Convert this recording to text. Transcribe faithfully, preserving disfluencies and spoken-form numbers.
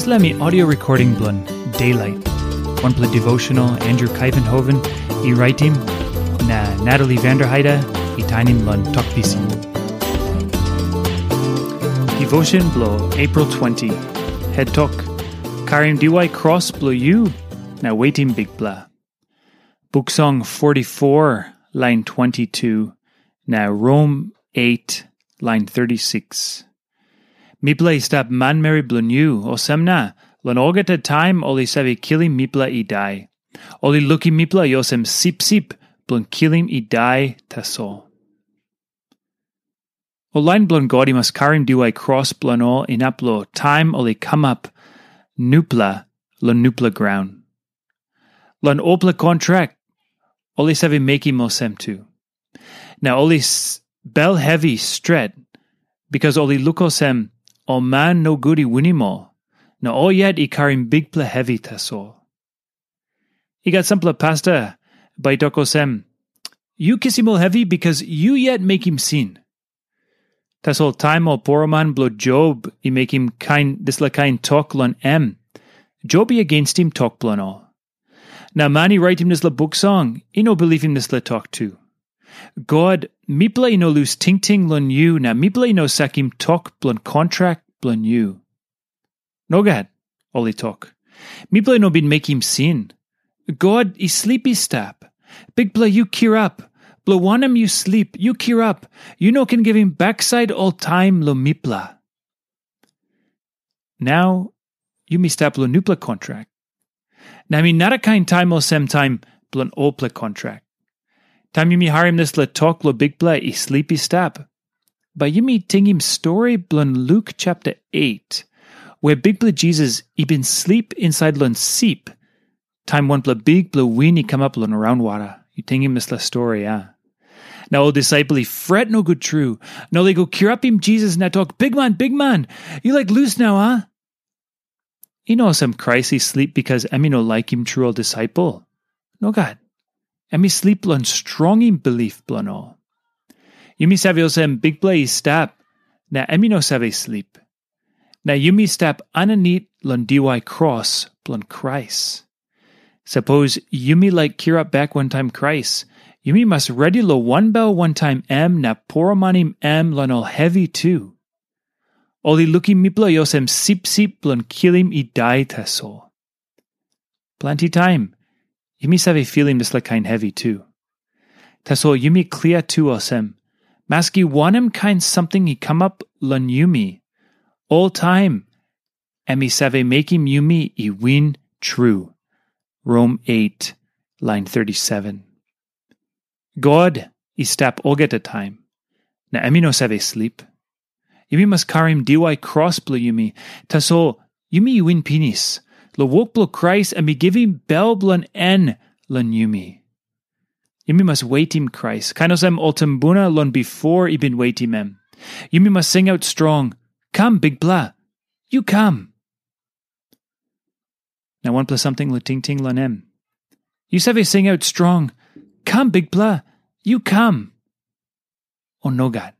Dispela mi audio recording bilong Daylight. Wanpela devotional Andrew Kaivenhoven i raitim, na Natalie Vanderheide i tainim long Tok Pisin. Devotion bilong April twenty. Head tok, karim diwai kros bilong yu, na wetim Bikpela. Buk Song forty-four, lain twenty-two, na Rom eight, lain thirty-six. Mipela i stap manmeri bilong yu, olsem na, long olgeta taim ol i save kilim mipela i dai. Ol i lukim mipela i olsem sipsip bilong kilim i dai tasol. Ol lain bilong God i mas karim diwai kros bilong ol inap long taim ol i kamap nupela long nupela graun. Long olpela kontrak, ol i save mekim olsem tu. Na ol i bel hevi stret, bikas ol i luk olsem ol man nogut i winim ol, na ol yet i karim bikpela hevi tasol. I gat sampela pasta bai tok olsem, "Yu kisim ol hevi bikas yu yet mekim sin." Tasol taim ol poroman bilong Job i mekim kain dispela kain tok long em, Job i agenstim tok bilong ol. Na man i raitim dispela buk song i no bilipim dispela tok tu. God, mipela i no lus tingting long yu, na mipela i no sakim tok bilong kontrak bilong yu. Nogat, ol i tok. Mipela i no bin mekim sin. God i slip i stap. Bikpela, yu kirap. Bilong wanem yu slip, yu kirap. Yu no ken givim baksait oltaim long mipela. Nau yumi stap long nupela kontrak. Na mi narakain taim olsem taim bilong olpela kontrak. Taim yumi harim dispela tok long Bikpela i slip i stap, bai yumi tingim stori bilong Luk chapter eight, where Bikpela Jisas i bin slip inside long sip, taim wanpela bikpela win i kamap long raunwara. Yu tingim dispela stori, a? Na ol disaipel i fret nogut tru, na ol i go kirapim Jisas na tok, "Bikman, bikman, yu laik lus nau, a?" I no olsem Krais i slip bikas em i no laikim tru ol disaipel. Nogat. Em i slip long strongim bilip bilong ol. Yumi save olsem Bikpela i stap, na em i no save slip. Na yumi stap aninit long diwai kros bilong Krais. Sapos yumi laik kirap bek wantaim Krais, yumi mas redi long wanbel wantaim em na poromanim em long ol hevi tu. Ol i lukim mipela i olsem sipsip bilong kilim i dai tasol. Planti taim, yumi save filim dispela kain hevi tu. Tasol yumi klia tu olsem, maski wanem kain samting i kamap long yumi, oltaim em i save mekim yumi i win tru. Rom eight, lain thirty-seven. God i stap olgeta taim, na em i no save slip. Yumi mas karim diwai kros bilong yumi, tasol yumi i win pinis. Long wok bilong Krais em i givim bel bilong en long yumi. Yumi mas wetim Krais, kain olsem ol tumbuna long bipo i bin wetim em. Yumi mas singaut strong, "Kam, Bikpela, yu kam." Na wanpela samting long tingting long em. Yu save singaut strong, "Kam, Bikpela, yu kam." O nogat.